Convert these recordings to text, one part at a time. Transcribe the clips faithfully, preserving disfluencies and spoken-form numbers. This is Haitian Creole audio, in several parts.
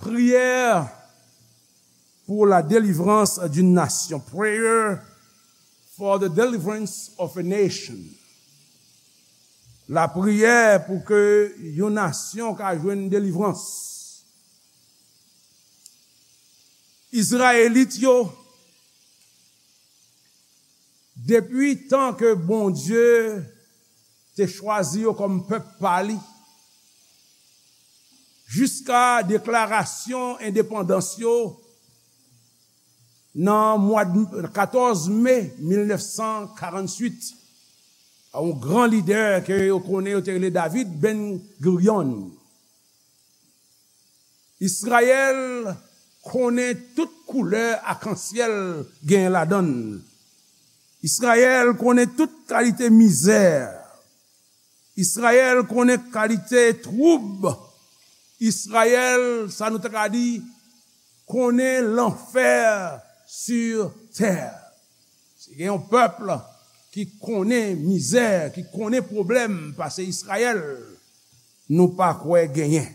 Prière pour la délivrance d'une nation. Prayer for the deliverance of a nation. Lapriyè pou ke yon nasyon ka jwenn delivrans. Izrayelit yo, depi tan ke Bondye te chwazi yo kòm pèp pa li, jiska deklarasyon endepandans yo nan mwa katòz me mil nèf san karantuit, pa yon gran lidè ke yo konnen, yo te rele David Ben Gurion. Izrayèl konnen tout koulè akansyèl genyen ladan l. Izrayèl konnen tout kalite mizè. Izrayèl konnen kalite twoub. Izrayèl, sa nou ta ka di, konnen lanfè sou tè. Si gen yon pèp ki konnen mizè, ki konnen pwoblèm pase Izrayèl, nou pa kwè genyen.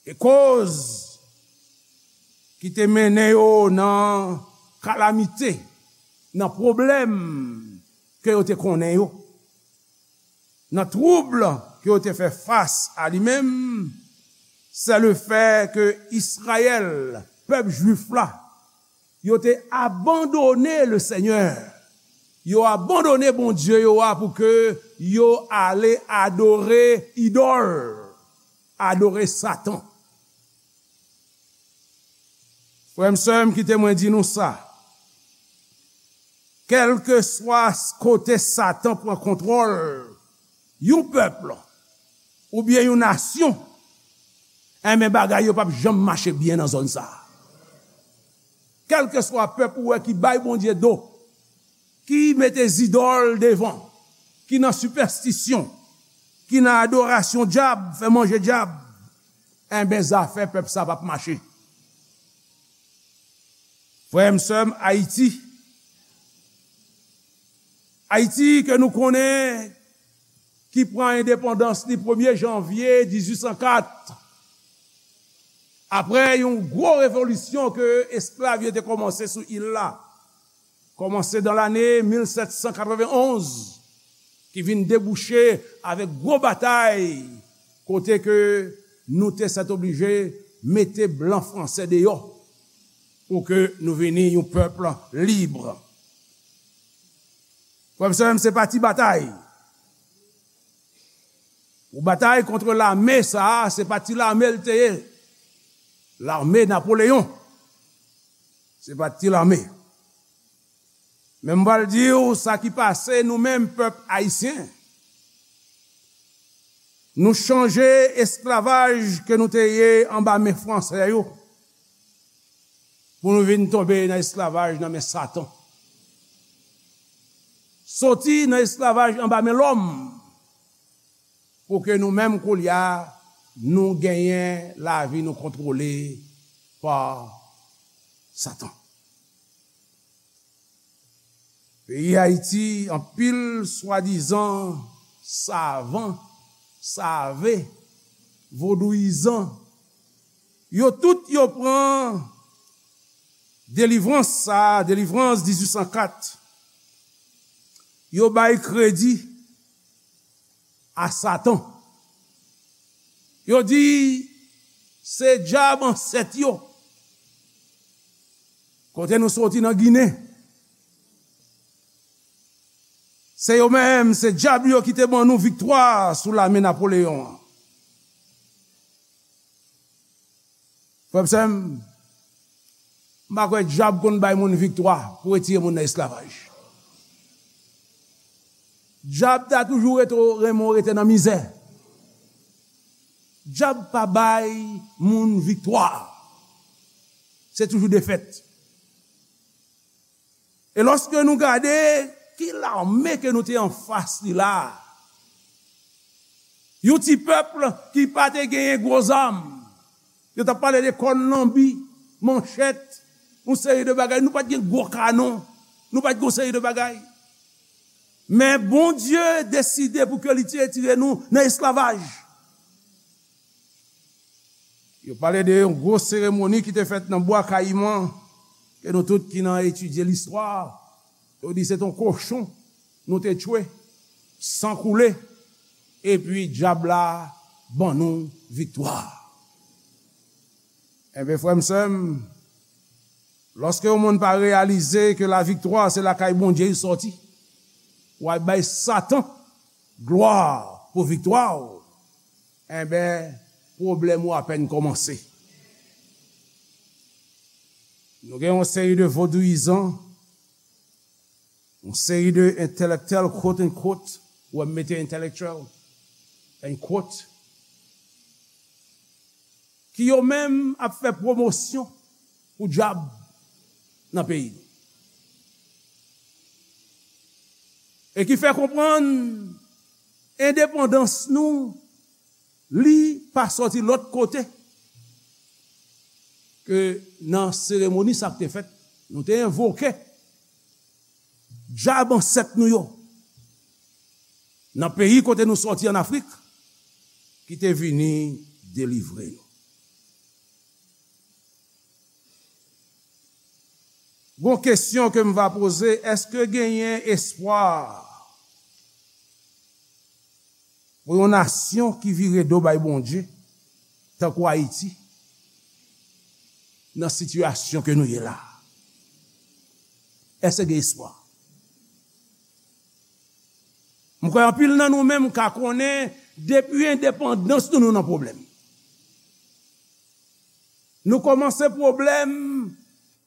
E koz ki te mennen yo nan kalamite, nan pwoblèm ke yo te konnen yo, nan twoub ke yo te fè fas a li menm, se le fè ke Izrayèl, pèp jwif la, yo te abandone le Senyè. Yo abandone Bondye yo a pou ke yo ale adore idòl, adore Satan. Frè m, sè m, kite mwen di nou sa. Kèlkeswa kote Satan pran kontwòl yon pèp oubyen yon nasyon, enben, bagay yo p ap janm mache byen nan zòn sa a. Kèlkeswa pèp ou wè ki bay Bondye do, ki mete zidòl devan, ki nan sipèstisyon, ki nan adorasyon dyab, fè manje dyab, enben, zafè pèp sa p ap mache. Frè m, sè m, Ayiti, Ayiti ke nou konnen, ki pran endepandans li premye janvye dizuit san kat, apre yon gwo revolisyon ke esklav yo te kòmanse sou il la, kòmanse dan lane mil sèt san katrevenn onz, ki vin debouche avèk gwo batay, kote ke nou te sètoblije mete blan franse deyò pou ke nou vini yon pèp lib. Frè m, sè m, se pa ti batay. Ou batay kont lame sa a, se pa ti lame l te ye. Lame Napoleyon, se pa ti lame. Men m pral di w sa ki pase nou menm pèp ayisyen. Nou chanje esklavaj ke nou te ye anba men franse yo, pou nou vin tonbe nan esklavaj nan men Satan. Soti nan esklavaj anba men lòm, pou ke nou menm koulye a, nou genyen lavi nou kontwole pa Satan. Peyi Ayiti, anpil swadizan savan, save, vodouyizan, yo tout yo pran delivrans sa a, delivrans dizuit san kat, yo bay kredi a Satan. Yo di se dyab ansèt yo. Kote nou soti nan Ginen, se yo menm, se dyab yo ki te ban nou viktwa sou lame Napoleyon an. Frè m, sè m, m pa kwè dyab konn bay moun viktwa pou retire moun nan esklavaj. Dyab ta toujou rete, renmen w rete nan mizè. Dyab pa bay moun viktwa. Se toujou defèt. E lòske nou gade ki lame ke nou te anfas li la a, yon ti pèp ki pa te genyen gwo zam, yo t ap pale de kòn lanbi, manchèt, yon seri de bagay. Nou pa t gen gwo kanon, nou pa t gen yon seri de bagay. Men Bondye deside pou ke li te retire nou nan esklavaj. Yo pale de yon gwo seremoni ki te fèt nan Bwa Kayiman, ke nou tout ki nan etidye listwa, yo di se t on kochon nou te tchwe, san koule, epi dyab la ban nou viktwa. Enben, frè m, sè m, lòske yon moun pa reyalize ke laviktwa se lakay Bondye li sòti, w al bay Satan glwa pou viktwa w, enben, pwoblèm ou apèn kòmanse. Nou gen yon seri de vodouyizan, yon seri de entèlektyèl, quote unquote, ou wè m mete intellectual, unquote, ki yo menm ap fè pwomosyon pou dyab nan peyi nou. E ki fè konprann endepandans nou, li pa sòti lòt kote ke nan seremoni sa k te fèt, nou te envoke dyab ansèt nou yo nan peyi kote nou sòti ann Afrik, ki te vini delivre nou. Gon kesyon ke m va poze, èske genyen espwa pou yon nasyon ki vire do bay Bondye, tankou Ayiti, nan sitiyasyon ke nou ye la? Èske gen espwa? M kwè anpil nan nou menm ka konnen, depi endepandans nou, nou nan pwoblèm. Nou kòmanse pwoblèm,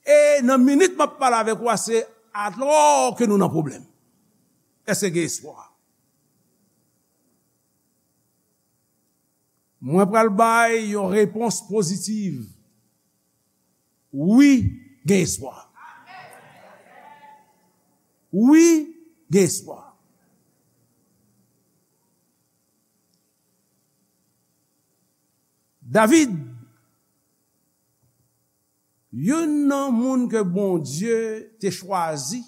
e nan minit m ap pale avèk ou a, se alò ke nou nan pwoblèm. Èske gen espwa? Mwen pral bay yon repons pozitiv. Wi, gen espwa. Wi, gen espwa. David, youn nan moun ke Bondye te chwazi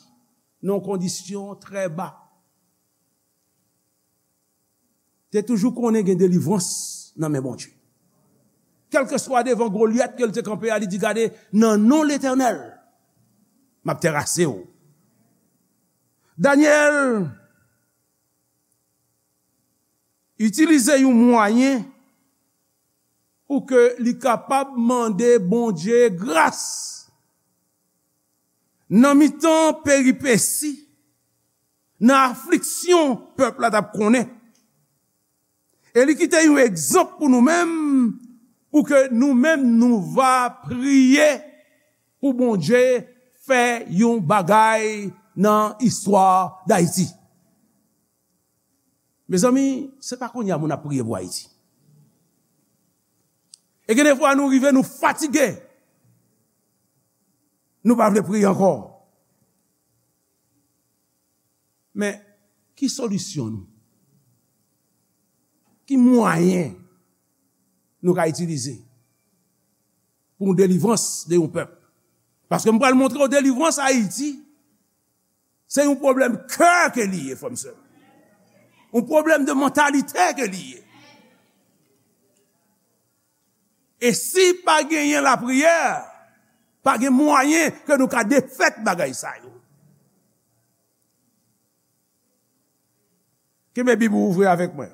nan yon kondisyon trè ba, te toujou konnen gen delivrans nan men Bondye. Kèlkeswa devan Golyat ke l te kanpe a, li di, "Gade, nan non Letènèl, m ap terase w." Danyèl itilize yon mwayen pou ke li kapab mande Bondye gras nan mitan peripesi, nan afliksyon pèp la t ap konnen. E li kite yon egzanp pou nou menm, pou ke nou menm nou va priye pou Bondye fè yon bagay nan istwa Dayiti. Mezanmi, se pa kounye a moun ap priye pou Ayiti. E gen de fwa nou rive, nou fatige. Nou pa vle priye ankò. Men, ki solisyon nou? Ki mwayen nou ka itilize pou yon delivrans de yon pèp? Paske m pral montre w delivrans Ayiti, se yon pwoblèm kè ke li ye, frè m, sè m. Yon pwoblèm de mantalite ke li ye. E si pa genyen lapriyè, pa gen mwayen ke nou ka defèt bagay sa yo. Kenbe Bib ou ouvri avèk mwen.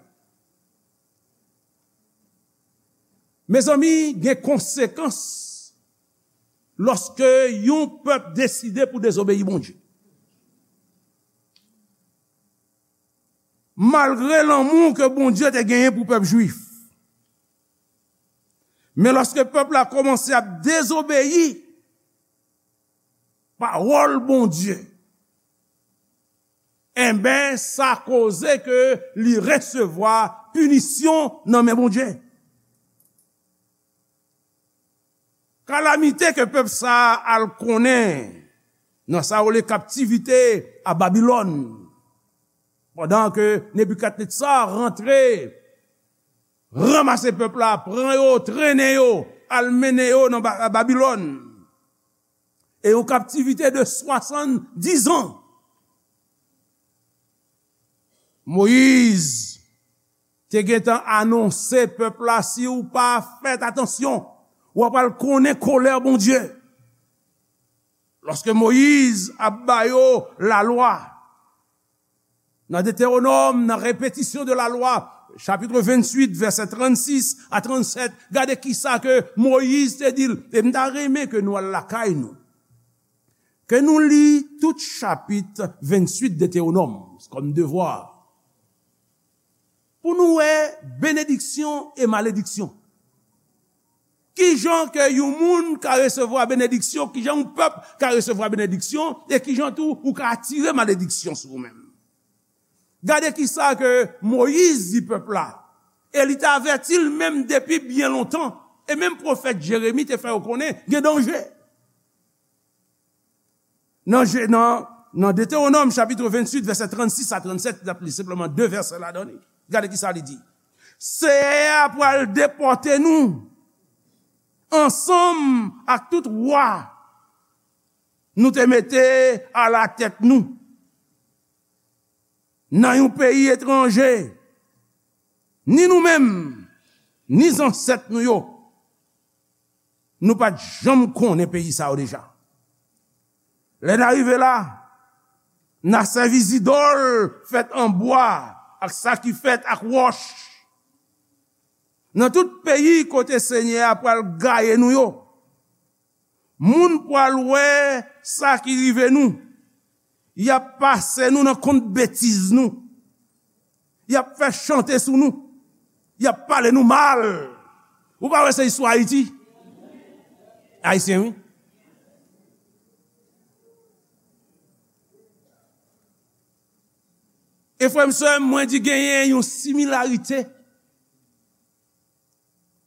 Mezanmi, gen konsekans lòske yon pèp deside pou dezobeyi Bondye. Malgre lanmou ke Bondye te genyen pou pèp jwif, men lòske pèp la kòmanse ap dezobeyi pawòl Bondye, enben, sa koze ke li resevwa pinisyon nan men Bondye. Kalamite ke pèp sa a al konnen nan sa yo rele kaptivite a Babilòn, pandan ke Nebikadnetza rantre, ranmase pèp la, pran yo, trennen yo, al mennen yo nan Ba-, Babilòn. E yon kaptivite de swasanndizan. Moyiz te gentan anonse pèp la, si w pa fè atansyon, w ap al konnen kolè Bondye. Lòske Moyiz ap ba yo lalwa, nan Detewonòm, nan Répétition de la loi, chapit venntuit, vèsè trannsis a trannsèt, gade kisa ke Moyiz te di l. E m ta renmen ke nou al lakay nou, ke nou li tout chapit venntuit Detewonòm kòm devwa, pou nou wè benediksyon e malediksyon. Kijan ke yon moun ka resevwa benediksyon, kijan yon pèp ka resevwa benediksyon, e kijan tou ou ka atire malediksyon sou ou menm. Gade kisa ke Moyiz di pèp la, e li te avèti l menm depi byen lontan, e menm pwofèt Jeremi te fè yo konnen gen danje. Nan Je-, nan, nan Detewonòm chapit venntuit, vèsè trannsis a trannsèt, n ap li senpleman de vèsè ladan li. Gade kisa li di. Seyè a pral depòte nou ansanm ak tout wa nou te mete alatèt nou nan yon peyi etranje, ni nou menm, ni zansèt nou yo, nou pa t janm konnen peyi sa yo deja. Lè n a rive la, n a sèvi zidòl fèt an bwa ak sa ki fèt ak wòch. Nan tout peyi kote Senyè a pral gaye nou yo, moun pral wè sa ki rive nou. Y ap pase nou nan kont betiz nou. Y ap fè chante sou nou. Y ap pale nou mal. Ou pa wè se istwa Ayiti? Ayisyen, wi. E frè m, sè m, mwen di genyen yon similarite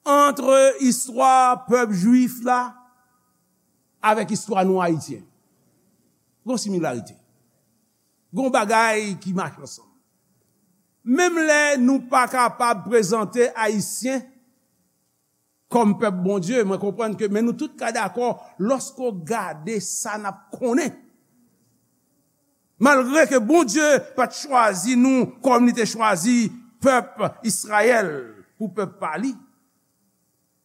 ant istwa pèp jwif la avèk istwa nou ayisyen. Gon similarite. Gon bagay ki mache ansanm. Menm lè nou pa kapab prezante ayisyen kòm pèp Bondye, mwen konprann ke, men nou tout ka dakò, lòske w gade sa n ap konnen. Malgre ke Bondye pa t chwazi nou kòm li te chwazi pèp Izrayèl pou pèp pa li,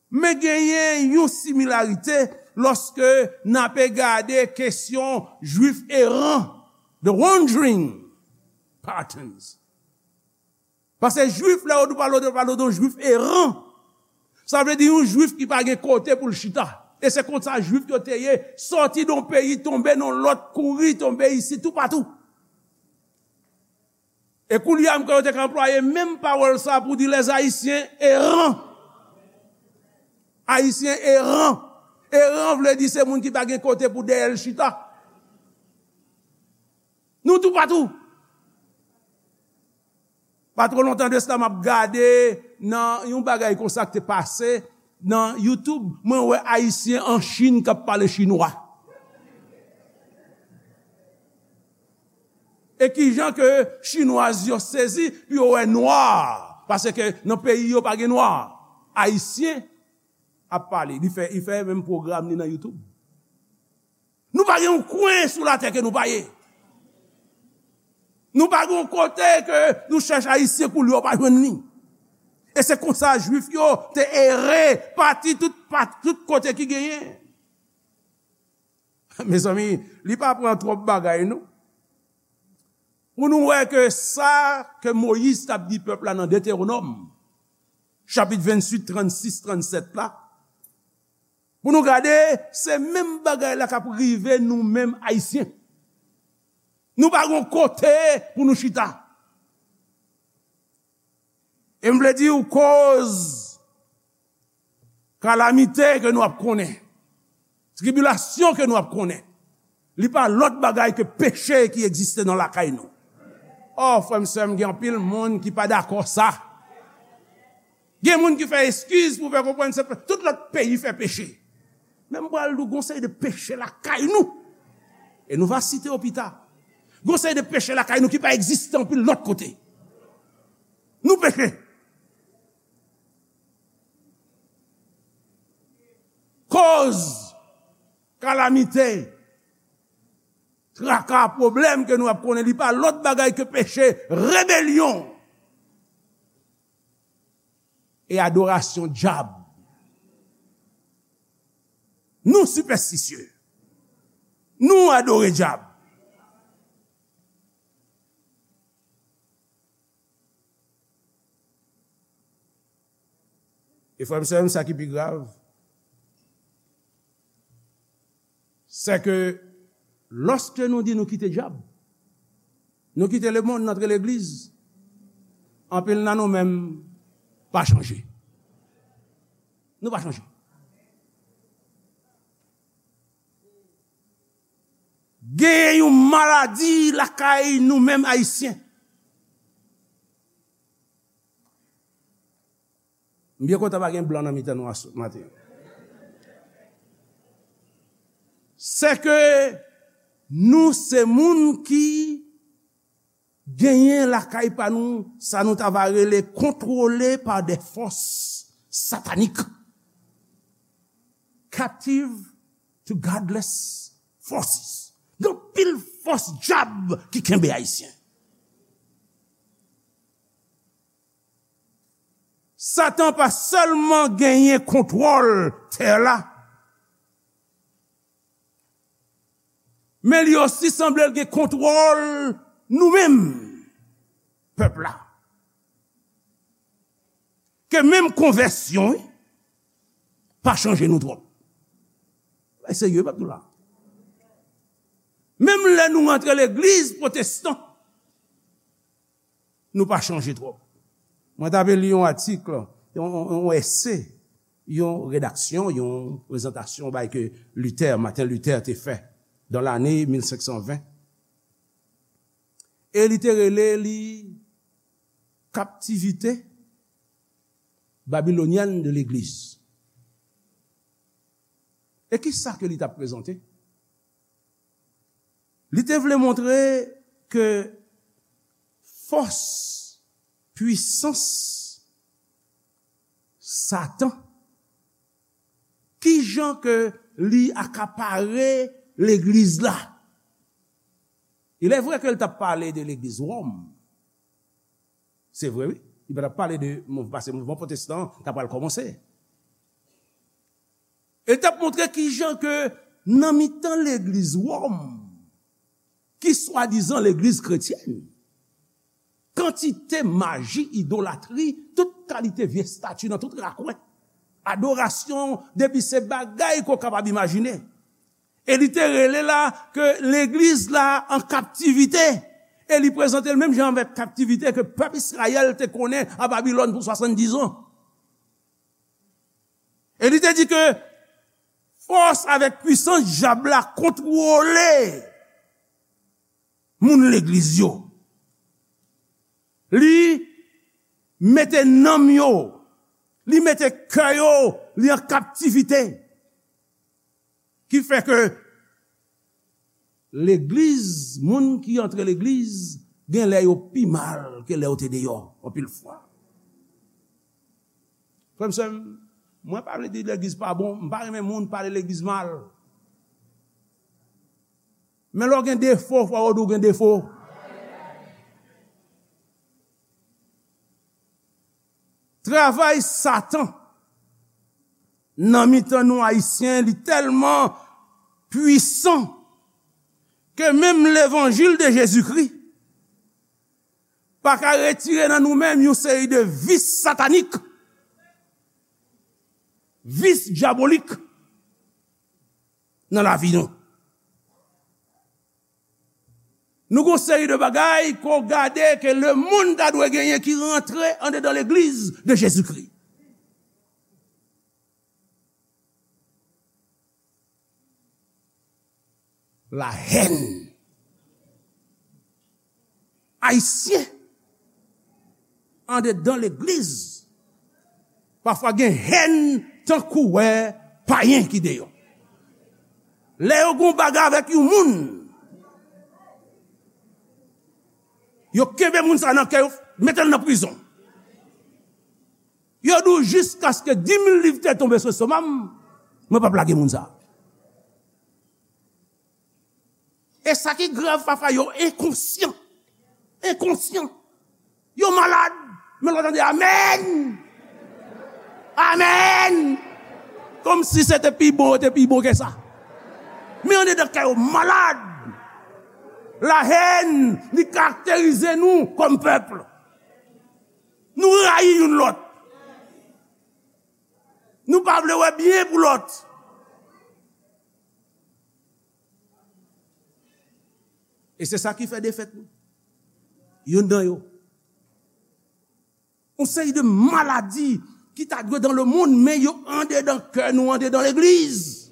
men genyen yon similarite lòske n ape gade kesyon jwif eran, the wandering patterns. Paske jwif, lè yo pale de, pale de yon jwif eran, sa vle di yon jwif ki pa gen kote pou l chita. E se konsa jwif yo te ye, sòti nan yon peyi, tonbe nan lòt, kouri, tonbe isi, toupatou. E koulye a, m kwè yo te ka anplwaye menm pawòl sa pou di les Haïtiens errants. Ayisyen eran. Eran vle di se moun ki pa gen kote pou dèyè l chita. Nou toupatou. Pa twò lontan de sa, m ap gade nan yon bagay konsa ki te pase nan YouTube. Mwen wè Ayisyen an Chin k ap pale chinwa. E kijan ke chinwaz yo sezi pou yo wè nwa, paske nan peyi yo pa gen nwa. Ayisyen ap pale. Li fè, li fè menm pwogram li nan YouTube. Nou pa gen yon kwen sou latè ke nou pa ye. Nou pa gen yon kote ke nou chèche Ayisyen pou li, w pa jwenn li. E se konsa Jwif yo te ere, pati tout, pa-, tout kote ki genyen. Mezanmi, li pa pran twòp bagay, non. Pou nou wè ke sa ke Moyiz t ap di pèp la nan Detewonòm, chapit venntuit, trannsis, trannsèt la, pou nou gade, se menm bagay la k ap rive nou menm Ayisyen. Nou pa gon kote pou nou chita. E m vle di w koz kalamite ke nou ap konnen, tribilasyon ke nou ap konnen, li pa lòt bagay ke peche ki egziste nan lakay nou. O, frè m, sè m, gen anpil moun ki pa dakò sa. Gen moun ki fè eskiz pou fè konprann se pe-, tout lòt peyi fè peche. Men m pral di w, gon seri de peche lakay nou. E nou va site yo pita. Gon seri de peche lakay nou ki pa egziste anpil lòt kote. Nou peche. Koz kalamite, traka, pwoblèm ke nou ap konnen, li pa lòt bagay ke peche, rebelyon. e adorasyon dyab. Nou sipèstisye. Nou adore dyab. E frè m, sè m, sa ki pi grav, se ke lòske nou di nou kite dyab, nou kite lemonn, n antre legliz, anpil nan nou menm pa chanje. Nou pa chanje. Gen yon maladi lakay nou menm Ayisyen. M byen kontan pa gen blan nan mitan nou aswè maten. Se ke nou se moun ki genyen lakay pa nou, sa nou ta va rele contrôlé par des forces sataniques, captive to godless forces. Gen pil fòs dyab ki kenbe Ayisyen. Satan pa sèlman genyen kontwòl tè la, men li osi sanble l gen kontwòl nou menm, pèp la. Ke menm konvèsyon, wi, pa chanje nou twòp. Bay serye, pèp nou la. Menm lè nou rantre legliz pwotestan, nou pa chanje twòp. Mwen t ap li yon atik, yon, yon, yon ese, yon redaksyon, yon prezantasyon bay ke Luther, Martin Luther te fè dan lane mil senk san ven. E li te rele li Captivité babylonienne de l'Église. E ki sa ke li t ap prezante? Li te vle montre ke fòs, pwisans Satan, ki jan ke li akapare legliz la. Il est vrai ke l t ap pale de legliz Wòm. Se vre, wi. Li pa t ap pale de mouv-, paske mouvman pwotestan ta pral kòmanse. E l t ap montre ki jan ke nan mitan legliz Wòm, ki swadizan legliz kretyèn, kantite maji, idolatri, tout kalite vye estati nan tout rakwen. Adorasyon, depi se bagay ke w kapab imajine. E li te rele la ke legliz la an kaptivite. E li prezante l menm jan avèk kaptivite ke pèp Izrayèl te konnen a Babilòn pou swasanndizan. E li te di ke fòs avèk pwisans dyab la kontwole moun legliz yo. Li mete nanm yo, li mete kè yo, li an kaptivite. Ki fè ke legliz, moun ki antre legliz, gen lè yo pi mal ke lè yo te deyò, anpil fwa. Frè m, sè m, mwen pa vle di legliz pa bon, m pa renmen moun pale legliz mal. Men lè w gen defo, fò yo di w gen defo. Travay Satan nan mitan nou Ayisyen, li tèlman pwisan ke menm levanjil de Jezikri pa ka retire nan nou menm yon seri de vis satanik, vis dyabolik nan lavi nou. Nou gon seri de bagay ke w gade ke lemonn ta dwe genyen ki rantre andedan legliz de Jezikri. Lahèn. Ayisyen andedan legliz pafwa gen hèn tankou wè payen ki deyò. Lè yo gon bagay avèk yon moun, yo kenbe moun sa nan kè yo, mete l nan prizon. Yo di w jiskaske di mil liv te tonbe sou estoma m, mwen p ap lage moun sa. E sa ki grav, pafwa yo enkonsyan. Enkonsyan. Yo malad, men lè w tande amèn. Amèn! Kòmsi se te pi bon, yo te pi bon ke sa. Men andedan kè yo malad. Lahèn, li karakterize nou kòm pèp. Nou rayi youn lòt. Nou pa vle wè byen pou lòt. E se sa ki fè defèt nou. Youn nan yo. Yon seri de maladi ki ta dwe dans le monde, men yo andedan kè nou, andedan legliz.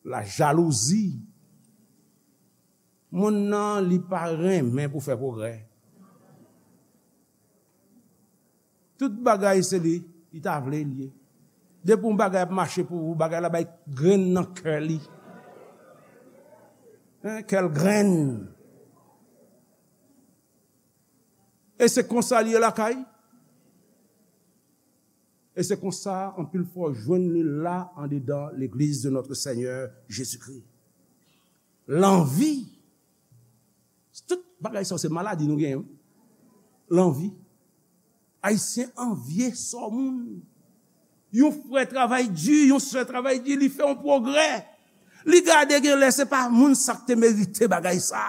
La jalouzi. Moun nan, li pa renmen pou fè pwogrè. Tout bagay se li, li ta vle li ye. Depi yon bagay ap mache pou ou, bagay la bay grenn nan kè li. Hein, kè l grenn. E se konsa li ye lakay. E se konsa, anpil fwa, w jwenn li la andedan legliz de notre Seigneur Jésus-Christ. Lanvi. Tout bagay sa se maladi nou genyen. Lanvi. Ayisyen anvye sò moun. Yon frè travay di, yon sè travay di, li fè yon pwogrè. Li gade gen lè se pa moun sa k te merite bagay sa.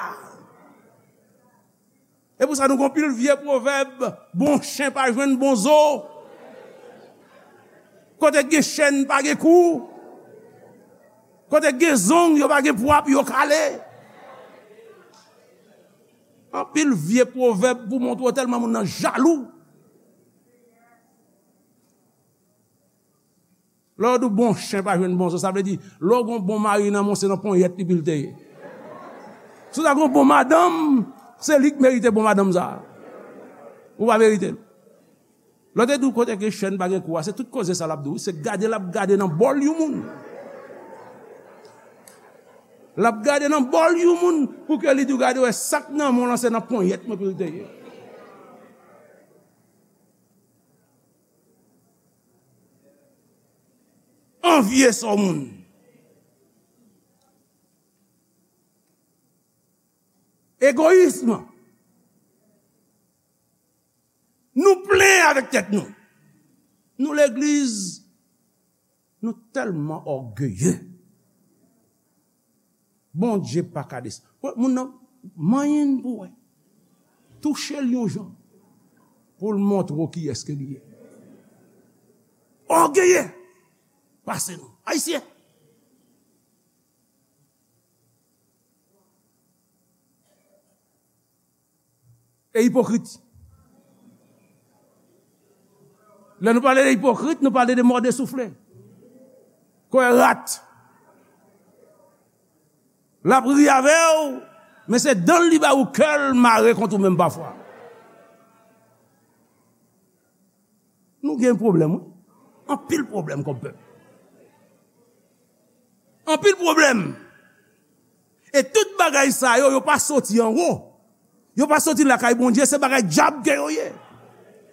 E pou sa nou gon pil vye pwovèb, bon chen pa jwenn bon zo. Kote gen chèn pa gen kou. Kote gen zong yo pa gen pwa pou yo kale. Anpil vye pwovèb pou montre w tèlman moun nan jalou. Lè yo di w bon chen pa jwenn bon zo, sa vle di, lè w gon bon mari nan men w, se nan ponyèt li pou l te ye. Si w ta gon bon madanm, se li k merite bon madanm sa. Ou pa merite l. Lè w te di w kote ke chèn pa gen kou a, se tout koze sa l ap di w. Se gade l ap gade nan bòl yon moun. L ap gade nan bòl yon moun pou ke li di w gade wè sa k nan men w lan se nan ponyèt mwen pou l te ye. Anvye sò moun. Egoyism. Nou plen avèk tèt nou. Nou legliz, nou tèlman ògeye. Bondye pa ka desann. Wè, moun nan, manyen pou wè. Touche l yon jan. Pou l montre w kiyès ke li ye. Ògeye. Pase nou. Ayisyen. E ipokrit. Lè nou pale de ipokrit, nou pale de mòde soufle. Kwè rat. L ap ri avè w, men se dan l li ba ou kè l mare kont ou menm pafwa. Nou gen pwoblèm, wi. Anpil pwoblèm kòm pèp. Anpil pwoblèm. E tout bagay sa yo, yo pa soti anwo. Yo pa soti lakay Bondye, se bagay dyab ke yo ye.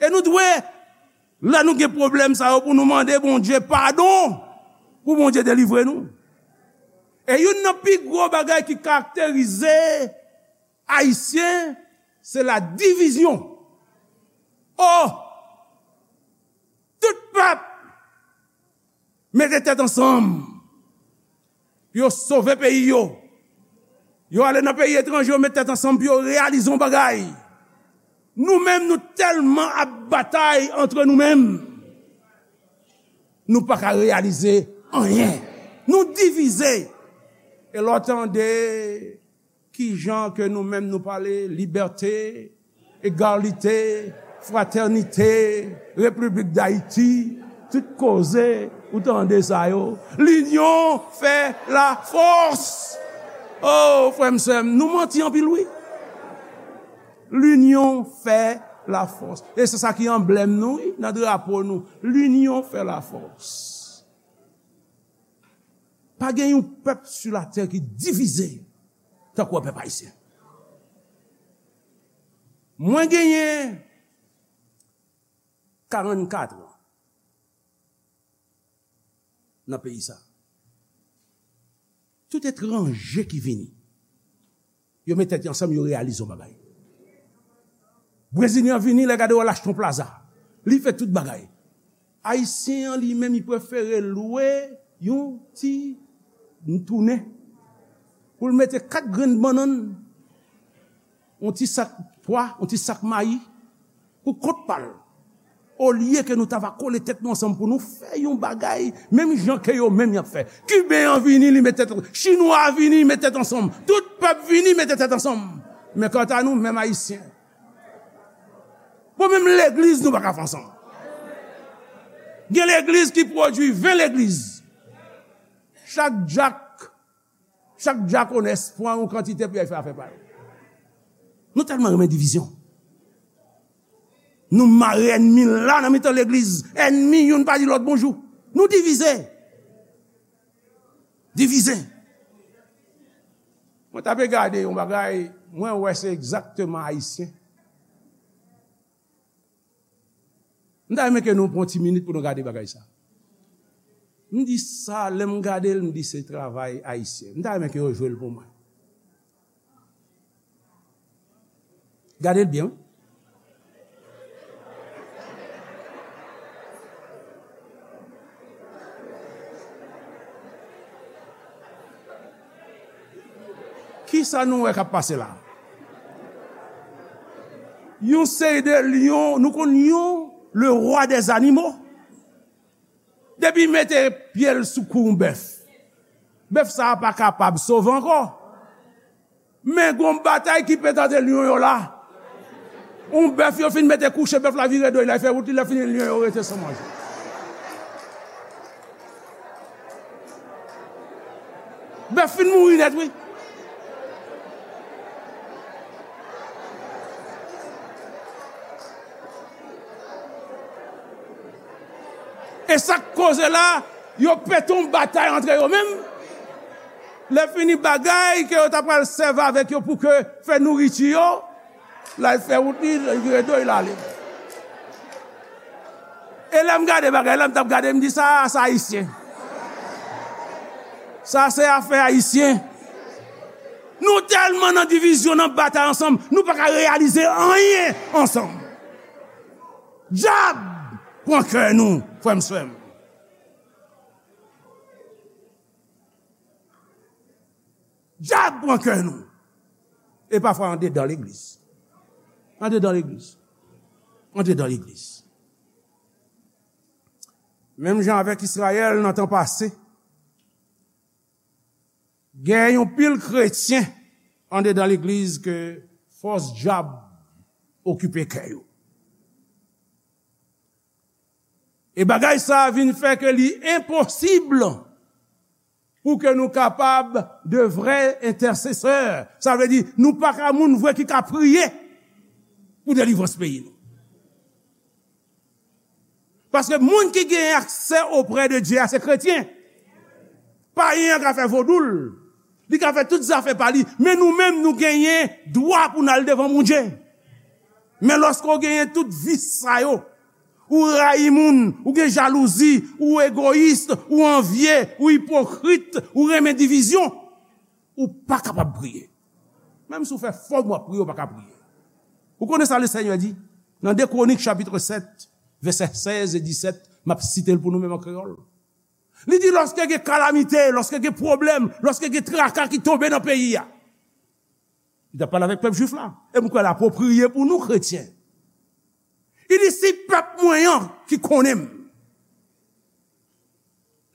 E nou dwe, lè nou gen pwoblèm sa yo, pou nou mande Bondye padon, pou Bondye delivre nou. E youn nan pi gwo bagay ki karakterize Ayisyen, se la divizyon. Oh! Tout pèp mete tèt ansanm pou yo sove peyi yo. Yo ale nan peyi etranje, yo met tèt ansanm pou yo reyalize yon bagay. Nou menm, nou tèlman ap batay antre nou menm. Nou pa ka reyalize anyen. Nou divize. E lè w tande kijan ke nou menm nou pale, libète, egalite, fratènite, Repiblik Dayiti, tout koze, ou tande sa yo. Linyon fè lafòs. Oh, frè m, sè m, nou manti anpil, wi. Linyon fè lafòs. E se sa ki anblèm nou, wi, nan drapo nou. Linyon fè lafòs. Pa gen yon pèp sou latè ki divize tankou pèp ayisyen. Mwen genyen karannkat an nan peyi sa. Tout etranje ki vini, yo met tèt yo ansanm, yo reyalize yon bagay. Brezilyen an vini, lè gade w al achte yon plaza. Li fè tout bagay. Ayisyen an li menm, li prefere lwe yon ti tounen pou l mete kat grenn bannann, yon ti sak pwa, yon ti sak mayi, pou kont pa l. Olye ke nou ta va kole tèt nou ansanm pou nou fè yon bagay, menm jan ke yo menm y ap fè. Kiben an vini, li met tèt, Chinwa a vini, li met tèt ansanm. Tout pèp vini, mete tèt ansanm. Men kanta nou, menm Ayisyen, bon, menm legliz, nou pa ka fè ansanm. Gen legliz ki pwodui ven legliz. Chak dyak, chak dyakonès pran yon kantite pou y al fè afè pa yo. Nou tèlman renmen divizyon. Nou mare ènmi la nan mitan legliz. Ènmi youn pa di lòt bonjou. Nou divize. Divize. Mwen t ape gade yon bagay, mwen wè se egzakteman Ayisyen. M ta renmen ke nou pran ti minit pou nou gade bagay sa. M di sa, lè m gade l, m di se travay Ayisyen. M ta renmen ke yo jwe l pou mwen. Gade l byen, wi. Kisa nou wè k ap pase la? Yon seri de lyon, nou konn lyon, le roi des animaux. Depi mete pye l sou kou yon bèf, bèf sa a pa kapab sove ankò. Men gon batay ki pete ant lyon yo la. Yon bèf yo fin mete kouche, bèf la vire do l, l al fè wout li, lè fini lyon yo rete san manje. Bèf fin mouri nèt, wi. E sa k koze la, yo pete yon batay antre yo menm. Lè fini bagay ke yo ta pral sèvi avèk yo pou ke fè nouriti yo, l al fè wout li, li vire do l, l ale. E lè m gade bagay la, m t ap gade, m di, "Sa, sa Ayisyen. Sa se afè Ayisyen." Nou tèlman nan divizyon, nan batay ansanm, nou pa ka reyalize anyen ansanm. Dyab pran kè nou, frè m, sè m. Dyab pran kè nou. E pafwa andedan legliz. Andedan legliz. Andedan legliz. Menm jan avèk Izrayèl nan tan pase, gen yon pil kretyen andedan legliz ke fòs dyab okipe kè yo. E bagay sa a vin fè ke li enposib pou ke nou kapab de vrè entèsesè. Sa vle di, nou pa ka moun vre ki ka priye pou delivrans peyi nou. Paske moun ki gen aksè oprè de Dye a, se kretyen. Payen an ka fè vodou l, li ka fè tout zafè pa li, men nou menm, nou genyen dwa pou n al devan Bondye. Men lòske w genyen tout vis sa yo, ou rayi moun, ou gen jalouzi, ou egoyis, ou anvye, ou ipokrit, ou renmen divizyon, ou pa kapab priye. Menm si w fè fòm w ap priye, ou pa ka priye. Ou konnen sa Lesenyè di? Nan de Kwonik chapit sèt, vèsè sèz e disèt, m ap site l pou nou menm an kreyòl. Li di, lòske gen kalamite, lòske gen pwoblèm, lòske gen traka ki tonbe nan peyi a, li t ap pale avèk pèp jwif la. E m kwè l apwopriye pou nou kretyen. Li di, si pèp mwen an ki konnen m,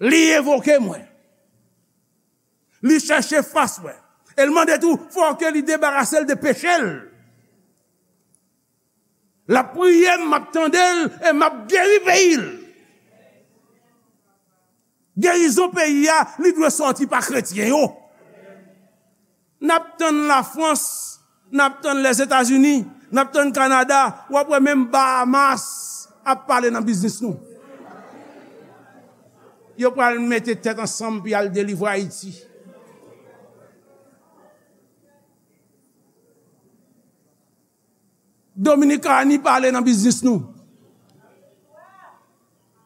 li envoke mwen, li chèche fas mwen, e l mande tou, fò ke li debarase l de peche l. L ap priye m, m ap tande l, e m ap geri peyi l. Gerizon peyi a, li dwe sòti pa kretyen yo. N ap tann Lafrans, n ap tann Lèzetazini, n ap tann Kanada, w ap wè menm Bahamas ap pale nan biznis nou. Yo pral mete tèt ansanm pou y al delivre Ayiti. Dominikani pale nan biznis nou.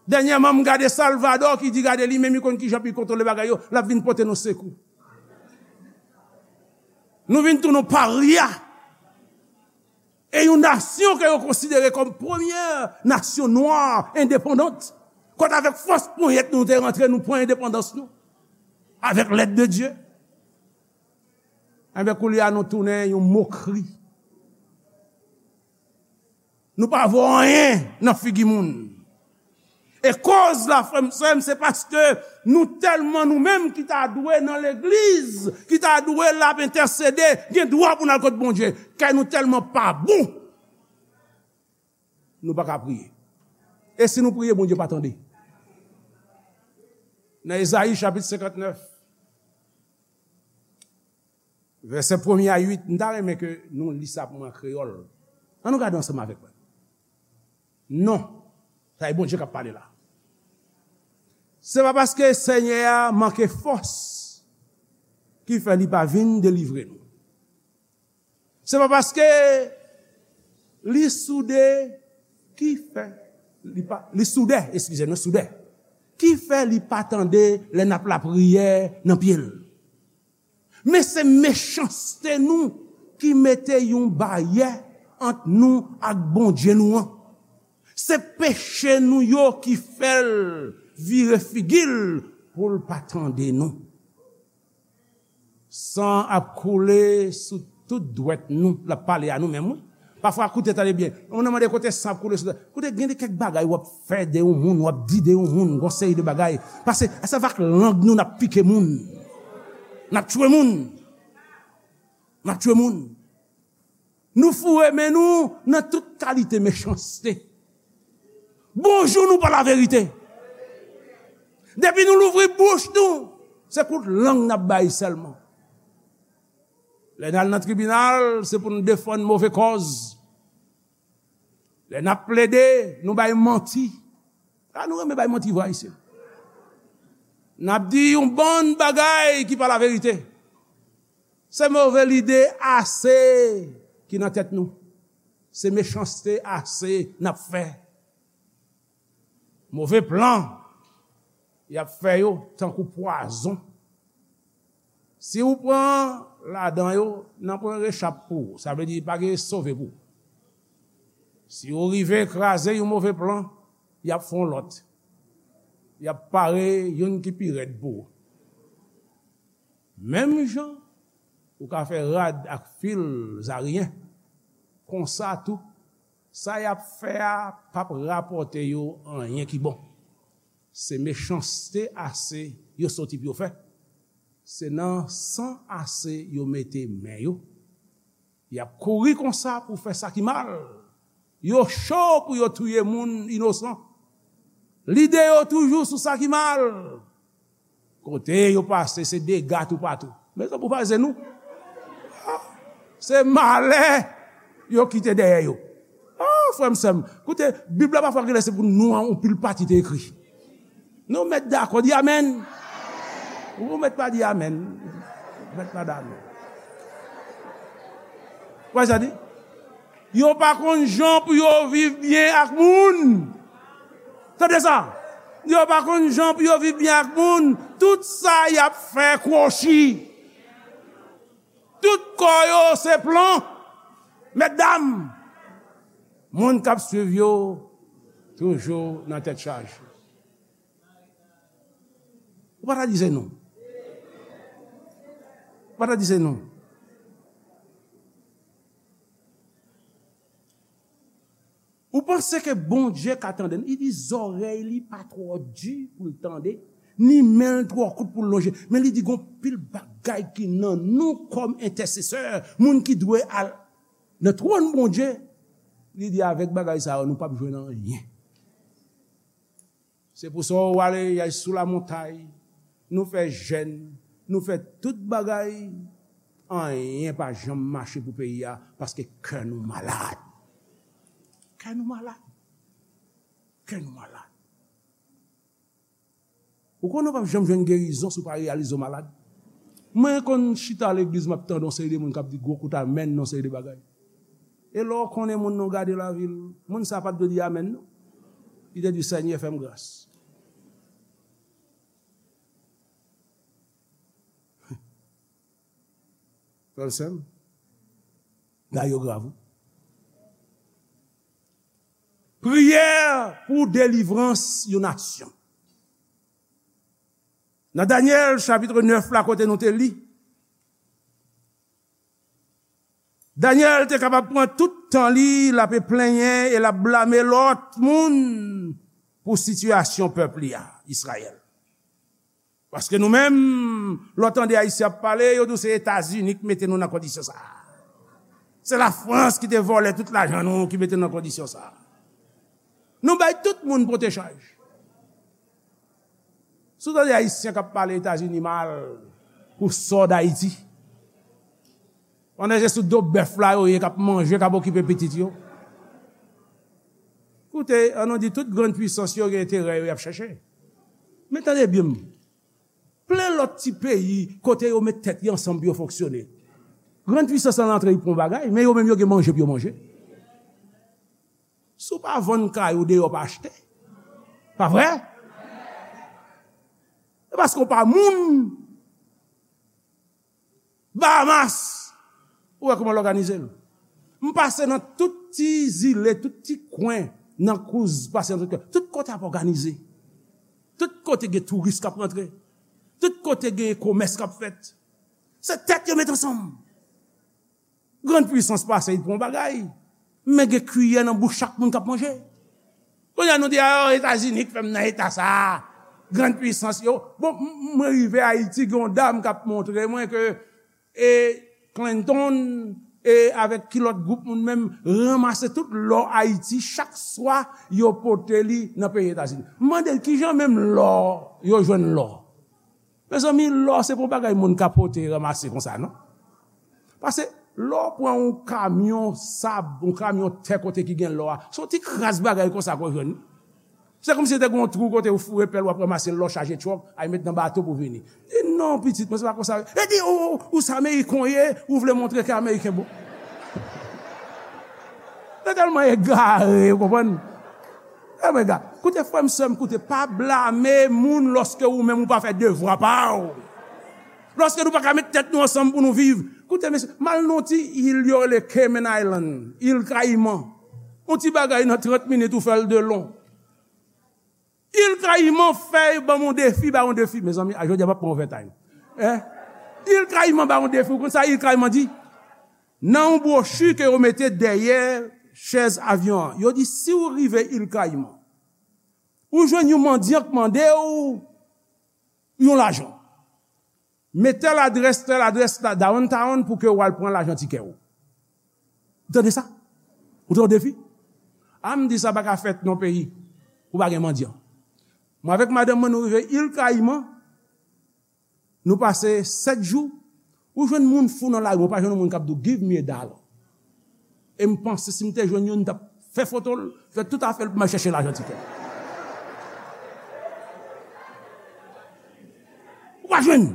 Dènyèman, m gade Salvadò ki di, gade, li menm li konn kijan pou l kontwole bagay yo, l ap vin pote nou sekou. Nou vin tounen yon parya. E yon nasyon ke yo konsidere kòm premyè nasyon nwa endepandant. Kote avèk fòs ponyèt nou te rantre, nou pran endepandans nou. Avèk lèd de Dye. Enben, koulye a nou tounen yon mokri. Nou pa vo anyen nan figi moun. E koz la, frè m, sè m, se paske nou tèlman, nou menm ki ta dwe nan legliz, ki ta dwe la ap entèsede, gen dwa pou n al kot Bondye. Kè nou tèlman pa bon, nou pa ka priye. E si nou priye, Bondye pa tande. Nan Ezayi chapit senkantnèf, vèsè premye a uit, m ta renmen ke nou li sa pou mwen an kreyòl. Ann nou gade ansanm avèk mwen. Non. Sa e Bondye k ap pale la. Se pa paske Senyè a manke fòs ki fè li pa vin delivre nou. Se pa paske li soude ki fè li pa, li soudè, eskize nou, soudè. Ki fè li pa tande lè n ap lapriyè nan pye l. Men se mechanste nou ki mete yon baryè ant nou ak Bondye nou an. Se peche nou yo ki fè l vire figi l pou l pa tande nou. San ap koule sou tout dwèt nou. L ap pale a nou menm, wi. Pafwa, koute, tande byen. Yon moun mande kote san ap koule sou dwèt. Koute, gen de kèk bagay w ap fè de yon moun, w ap di de yon moun, yon seri de bagay. Paske se avèk lang nou n ap pike moun. N ap tchwe moun. N ap tchwe moun. Nou foure men nou nan tout kalite mechanste. Bonjou, nou pa laverite. Depi nou louvri bouch nou, se kout lang n ap bay sèlman. Lè n al nan tribinal, se pou n defann move kòz. Lè n ap plede, nou bay manti. A, nou renmen bay manti vre, Ayisyen. N ap di yon bann bagay ki pa laverite. Se move lide ase ki nan tèt nou. Se mechanste ase n ap fè. Move plan y ap fè yo tankou pwazon. Si w pran ladan yo, nan pran rechap pou ou. Sa vle di pa gen sove pou ou. Si w rive kraze yon move plan, y ap fè yon lòt. Y ap pare youn ki pi rèd pou ou. Menm jan ou ka fè rad ak fil zariyen, konsa tou, sa y ap fè a p ap rapòte yo anyen ki bon. Se mechanste ase yo soti pou yo fè. Se nan san ase yo mete men yo. Y ap kouri konsa pou fè sa ki mal. Yo cho pou yo touye moun inosan. Lide yo toujou sou sa ki mal. Kote yo pase, se dega toupatou. Mezanmi, ou pa wè se nou? Ah, se malè yo kite dèyè yo. Ah, frè m, sè m, koute, Bib la pafwa genlè se pou nou an, yon pil pati te ekri. Nou mèt dakò, di amèn. Ou mèt pa di amèn. Ou mèt pa di amèn. Wè sa di? Yo pa konn jan pou yo viv byen ak moun. Tande sa. Yo pa konn jan pou yo viv byen ak moun. Tout sa y ap fè kwochi. Tout kò yo se plan. Mètdam, moun k ap swiv yo toujou nan tèt chaje. Ou pa ta di se nou. Ou pa ta di se nou. Ou panse ke Bondye ka tande n? Li di zòrèy li pa twò di pou l tande, ni men l twò kout pou l lonje. Men li di gon pil bagay ki nan nou kòm entèsesè, moun ki dwe al nan twòn Bondye. Li di avèk bagay sa yo, nou p ap jwenn anyen. Se pou sa w ale y al sou lamontay, nou fè jèn, nou fè tout bagay, anyen pa janm mache pou peyi a, paske kè nou malad. Kè nou malad. Kè nou malad. Ou konnen w p ap janm jwenn gerizon si w pa reyalize w malad. Mwen konn chita legliz, m ap tande yon seri de moun k ap di gwo kout amèn nan yon seri de bagay. E lè w konnen moun nan, w gade lavi l, moun sa a pa t dwe di amèn, non. Li te di, Senyè, fè m gras. Frè m, sè m, bagay yo grav, wi. Priyè pou delivrans yon nasyon. Nan Danyèl chapit nèf la, kote nou te li, Danyèl te kapab pran tout tan li, l ap plenyen e l ap blame lòt moun pou sitiyasyon pèp li a, Izrayèl. Paske nou menm, lè w tande Ayisyen ap pale, yo di w se Etazini ki mete nou nan kondisyon sa a. Se Lafrans ki te vòlè tout lajan nou ki mete nou nan kondisyon sa a. Nou bay tout moun pote chaj. Si w tande Ayisyen k ap pale Etazini mal pou sò Dayiti, pandan se sou do bèf la yo ye, k ap manje, k ap okipe pitit yo. Koute, an nou di tout grann pwisans yo gen enterè yo y ap chèche. Men tande byen m. Plen lòt ti peyi kote yo met tèt yo ansanm pou yo fonksyone. Grann pwisans lan antre, y pran bagay, men yo menm yo gen manje pou yo manje. Si w pa vann kay ou deyò, pa achte. Pa vre? E paske w pa moun. Bahamas, ou wè kòman l òganize l. M pase nan tout ti zile, tout ti kwen, nan kouz, pase nan tout kwen. Tout kote ap òganize. Tout kote gen touris k ap rantre. Tout kote gen komès k ap fèt. Se tèt yo met ansanm. Grann pwisans pase, y pran bagay. Men gen kiyè nan bouch chak moun k ap manje. Kounye a nou di, "Ah, Etazini k fè m nan eta sa a." Grann pwisans yo. Bon, m-, mwen rive Ayiti, gen yon dam k ap montre mwen ke, e, Clinton, e, avèk ki lòt gwoup moun menm, ranmase tout lò Ayiti, chak swa yo pote li nan peyi Etazini. M mande l, "Kijan menm lò yo jwenn lò?" Mezanmi, lò se pa yon bagay moun ka pote, ranmase konsa, non. Paske lè w pran yon kamyon sab, yon kamyon tè kote ki gen lò a, se yon ti kras bagay konsa ke w jwenn. Se kòmsi te gen yon twou kote w foure pèl, w ap ranmase lò chaje twòk, al met nan bato pou vini. Di, "Non, pitit mwen, se pa konsa." E di, "Ou, ou, ou se Ameriken w ye, ou vle montre ke Ameriken bon." Se tèlman egare, ou konprann? E mwen gade, koute frè m, sè m, koute, pa blame moun lòske ou menm ou pa fè devwa pa w. Lòske nou pa ka met tèt nou ansanm pou nou viv. Koute, mesye, m al nan yon ti il yo rele Cayman Island, il Kayiman. Yon ti bagay nan trant minit ou fè l de lon. Il Kayiman fè ban m yon defi, ba yon defi. Mezanmi, a jodi a m ap pran overtime. Hein? Il Kayiman ba yon defi. Ou konn sa il Kayiman di? Nan yon bwochi ke yo mete dèyè chèz avyon an, yo di, "Si w rive il Kayiman, ou jwenn yon mandyan k mande w yon lajan. Men tèl adrès, tèl adrès la, downtown, pou ke w al pran lajan tikè w." Ou tande sa? Ou tande defi? A, m di sa pa ka fèt nan peyi ou pa gen mandyan. Mwen avèk madanm mwen, nou rive il Kayiman, nou pase sèt jou, ou jwenn moun fou nan lari, ou pa jwenn yon moun k ap di w, "Give me a dollar." E m panse si m te jwenn youn, m t ap fè foto l, fè tout afè l pou m al chèche lajan tikè. Ou pa jwenn.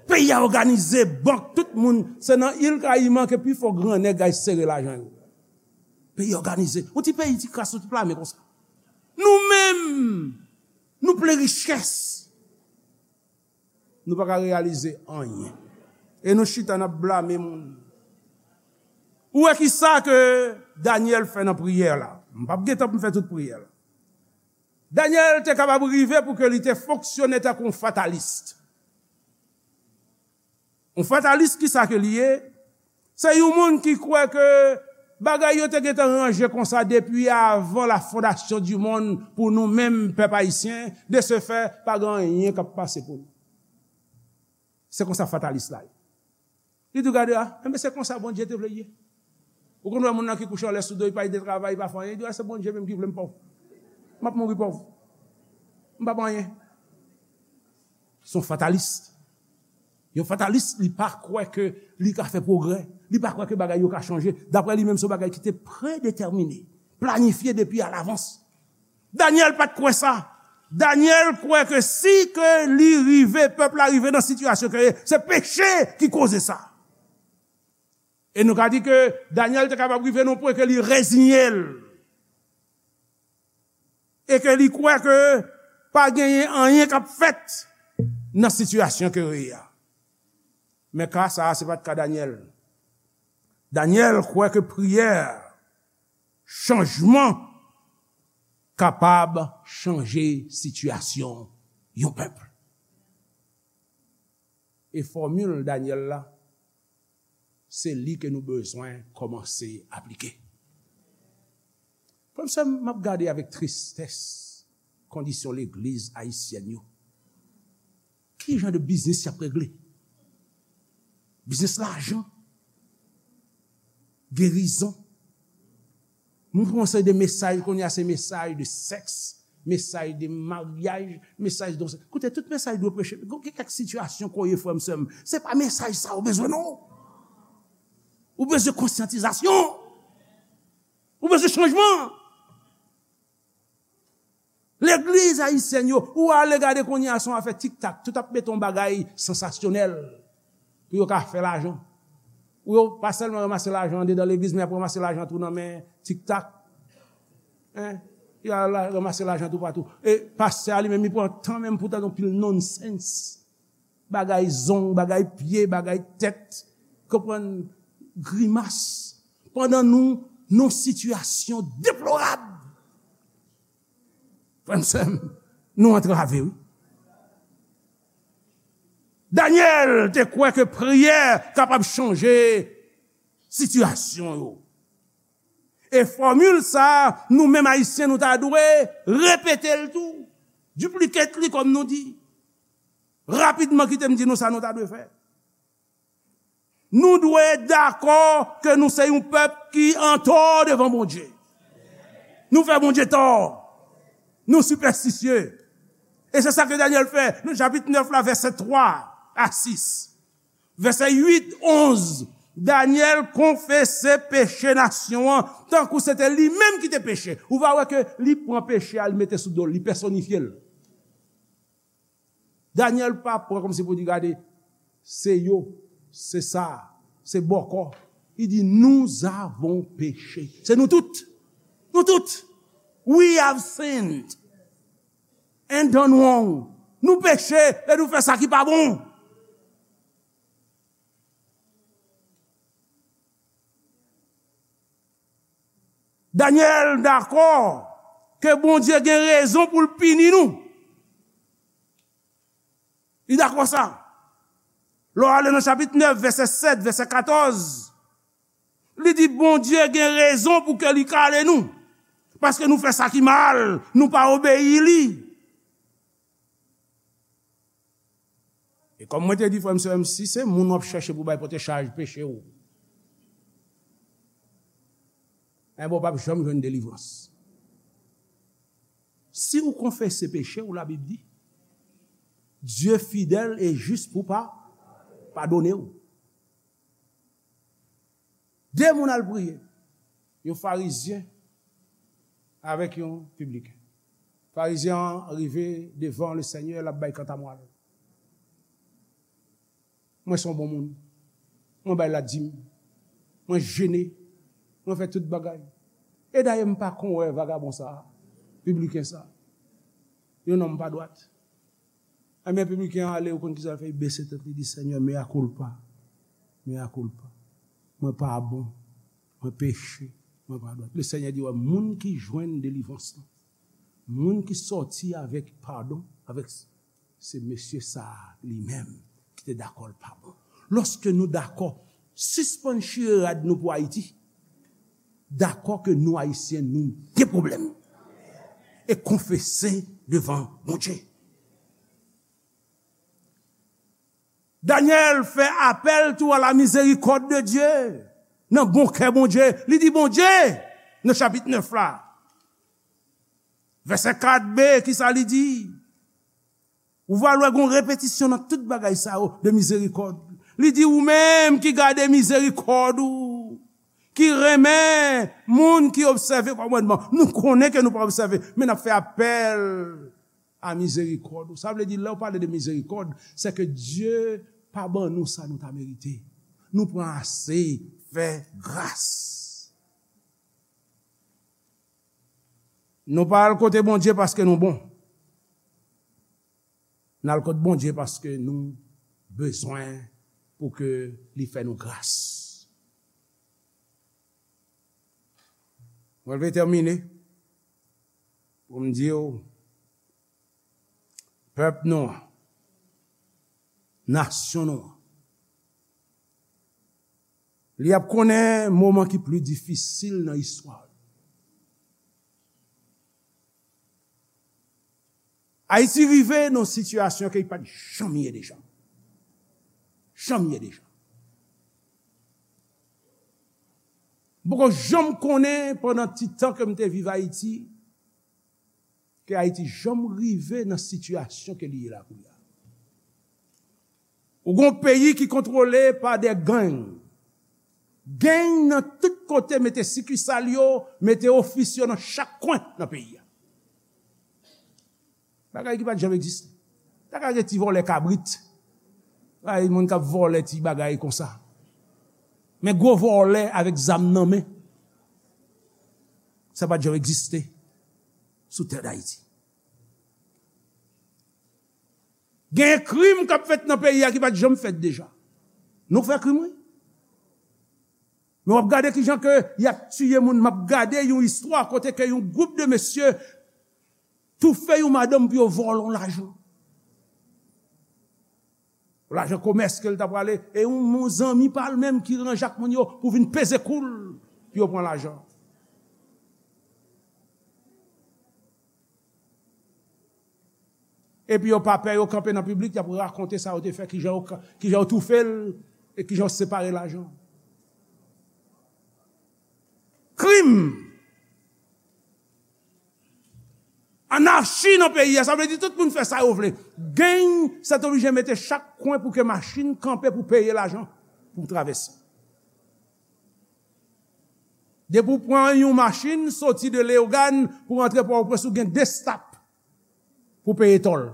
Peyi a òganize, bank, tout moun, se nan il Kayiman ke pifò gran nèg al sere lajan yo. Peyi òganize. Yon ti peyi, ti kras, yon ti plame konsa. Nou menm, nou plen richès. Nou pa ka reyalize anyen. E nou chita, n ap blame moun. Ou wè ki sa ke Danyèl fè nan priyè la? M p ap gen tan pou m fè tout priyè la. Danyèl te kapab rive pou ke li te fonksyone tankou yon fatalis. Yon fatalis, ki sa ke li ye? Se yon moun ki kwè ke bagay yo te gentan ranje konsa depi avan la fondation du monde pou nou menm pèp ayisyen, de ce fait, pa gen anyen k ap pase pou nou. Se konsa fatalis la ye. Li di w, "Gade a, enben se konsa Bondye te vle l ye." Ou konn wè moun nan ki kouche anlè sou do, li pa al travay, li pa fè anyen, li di, "A, se Bondye menm ki vle m pòv. M ap mouri pòv. M p ap anyen." Se yon fatalis. Yon fatalis, li pa kwè ke li ka fè pwogrè. Li pa kwè ke bagay yo ka chanje. Daprè li menm, se yon bagay ki te predetèmine, planifye depi alavans. Danyèl pa t kwè sa. Danyèl kwè ke si ke li rive, pèp la rive nan sitiyasyon ke ye, se peche ki koze sa. E nou ka di ke Danyèl te kapab rive nan pwen ke li reziye l. E ke li kwè ke pa genyen anyen k ap fèt nan sitiyasyon ke yo ye a. Men ka sa a, se pa t ka Danyèl. Danyèl kwè ke priyè, chanjman, kapab chanje sitiyasyon yon pèp. E fòmil Danyèl la, se li ke nou bezwen kòmanse aplike. Frè m, sè m, m ap gade avèk tristès kondisyon legliz ayisyèn yo. Ki jan de biznis y ap regle? Biznis lajan, gerizon. Moun pran yon seri de mesaj kounye a, se mesaj de sèks, mesaj de maryaj, mesaj de... Koute, tout mesaj dwe preche. Gen kèk sitiyasyon kounye, frè m, sè m, se pa mesaj sa ou bezwen, non. Ou bezwen konsyantizasyon. Ou bezwen chanjman. Legliz ayisyèn yo, ou ale gade kounye a, se yon afè tiktak. Tout ap mete yon bagay sansasyonèl pou yo ka fè lajan. Ou yo pa sèlman ranmase lajan andedan legliz, men y ap ranmase lajan tou nan men tiktak. Hein? Y a la, ranmase lajan toupatou. E pastè a li menm, li pran tan menm pou tande yon pil nonsens. Bagay zong, bagay pye, bagay tèt. Konprann? Grimas. Pandan nou, nou sitiyasyon deplorab. Frè m, sè m, nou antrave, wi. Danyèl te kwè ke priyè kapab chanje sitiyasyon yo. E fòmil sa a, nou menm Ayisyen, nou ta dwe repete l tou. Duplicate li, kòm nou di. Rapidman, kite m di nou sa nou ta dwe fè. Nou dwe dakò ke nou se yon pèp ki antò devan Bondye. Nou fè Bondye tò. Nou sipèstisye. E se sa ke Danyèl fè nan chapit nèf la, vèsè twa a sis. Vèsè uit, onz, Danyèl konfese peche nasyon an, tankou se te li menm ki te peche. Ou va wè ke li pran peche a, li mete sou do l, li pèsonifye l. Danyèl pa pran kòmsi pou di, gade, se yo, se sa, se bòkò. Li di, nous avons péché. Se nou tout. Nou tout. We have sinned and done wrong. Nou peche e nou fè sa ki pa bon. Danyèl dakò ke Bondye gen rezon pou l pini nou. Li dakò sa. Lè w ale nan chapit nèf, vèsè sèt, vèsè katòz, li di Bondye gen rezon pou ke li kale nou. Paske nou fè sa ki mal, nou pa obeyi li. E kòm mwen te di, frè m, sè m, si se moun w ap chèche pou bay pote chaj peche w, enben w p ap janm jwenn delivrans. Si w konfese peche w, Labib di, Dye fidèl e jis pou pa, padone w. De moun al priye, yon farizyen avèk yon pibliken. Farizyen an rive devan Lesenyè, l ap bay kantamwal. Mwen se yon bon moun. Mwen bay ladim. Mwen jene. Mwen fè tout bagay. E dayè, m pa konn wè vagabon sa a, pibliken sa a. Yon nonm pa dwat. Enben, pibliken an ale, ou konn ki sa l fè? Li bese tèt li, di, Senyè, mea culpa. Mea culpa. Mwen pa bon. Mwen peche. Mwen pa dwat. Lesenyè di, wè, moun ki jwenn delivrans lan, moun ki sòti avèk padon, avèk, se mesye sa a li menm ki te dakò l pa bon. Lòske nou dakò, sispann chire rad nou pou Ayiti. Dakò ke nou Ayisyen, nou gen pwoblèm. E konfese devan Bondye. Danyèl fè apèl tou à la miséricorde de Dieu. Nan bon kè Bondye, li di Bondye, nan chapit nèf la, vèsè kat b, kisa li di? Ou va wè gon repetisyon nan tout bagay sa yo de mizerikòd. Li di, ou menm ki gade mizerikòd ou, ki renmen moun ki obsève kòmandman. Nou konnen ke nou pa obsève, men n ap fè apèl a mizerikòd ou. Sa vle di, lè w pale de mizerikòd, se ke Dye pa ban nou sa nou ta merite. Nou pran ase, fè gras. Nou pa al kote Bondye paske nou bon. N al kot Bondye paske nou bezwen pou ke li fè nou gras. Mwen vle tèmine. Pou m di w, pèp nou an, nasyon nou an, li ap konnen moman ki pli difisil nan istwa l. Ayiti rive nan sitiyasyon ke li pa t janm ye deja. Janm ye deja. M poko janm konnen pandan ti tan ke m te viv Ayiti, ke Ayiti janm rive nan sitiyasyon ke li ye la kounye a. Ou gon peyi ki kontwole pa de gang. Gang nan tout kote, mete sikisal yo, mete ofis yo nan chak kwen nan peyi a. Bagay ki pa t janm egziste. Ta ka gen ti vòlè kabrit. Ay, moun k ap vòlè ti bagay konsa. Men gwo vòlè avèk zam nan men. Sa pa t janm egziste sou tè Dayiti. Gen krim k ap fèt nan peyi a ki pa t janm fèt deja. Nou fè krim, wi. Men w ap gade kijan ke y ap tiye moun. M ap gade yon istwa kote ke yon gwoup de mesye toufe yon madanm pou yo vòlè yon lajan. Lajan komès ke l ta prale, e yon, yon zanmi pa l menm ki ranje ak moun yo pou vin peze kou l pou yo pran lajan. Epi yo pa pè, yo kanpe nan piblik, y ap rakonte sa yo te fè, kijan yo ka, kijan yo toufe l, e kijan yo separe lajan. Krim! Anachi nan peyi a, sa vle di tout moun fè sa yo vle. Gang, sètoblije mete chak kwen pou ke machin kanpe pou peye lajan pou travèse. Depi w pran yon machin, soti de Leyogàn pou rantre Pòtoprens, ou gen de stop pou peye tòl.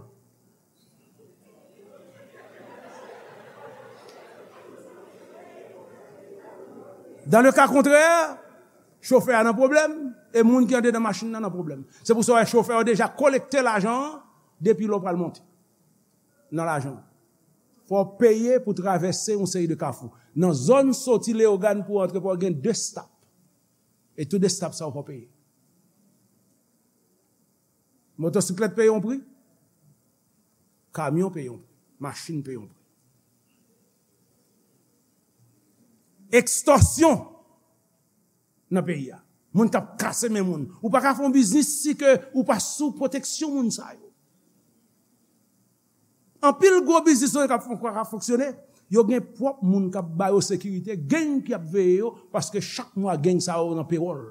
Dans le cas contraire, chofè a nan pwoblèm, e moun ki andedan machin nan nan pwoblèm. Se pou sa w wè chofè yo deja kolekte lajan an depi lè w pral monte nan lajan. Fò w peye pou travèse yon seri de kafou. Nan zòn soti Leyogàn pou w antre, pou w gen de stop. E tou de stop sa yo fò w peye. Motosiklèt peye yon pri, kamyon peye yon pri, machin peye yon pri. Ekstòsyon nan peyi a. Moun k ap kase men moun. Ou pa ka fè yon biznis si ke ou pa sou pwoteksyon moun sa yo. Anpil gwo biznis nou k ap fon-, k ap fonksyone, yo gen pwòp moun k ap ba yo sekirite, gang ki ap veye yo, paske chak mwa gang sa yo nan pewòl.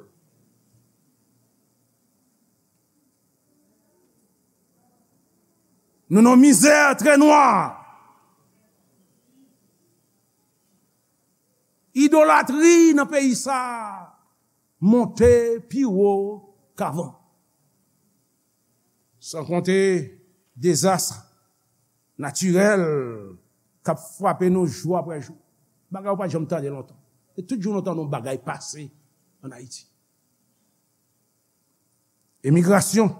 Nou nan mizè trè nwa. Idolatri nan peyi sa a monte pi wo k avan. San konte dezas natirèl k ap frape nou jou apre jou. Bagay ou pa t janm tande lontan. E tout jou nou tande yon bagay pase ann Ayiti. Emigrasyon.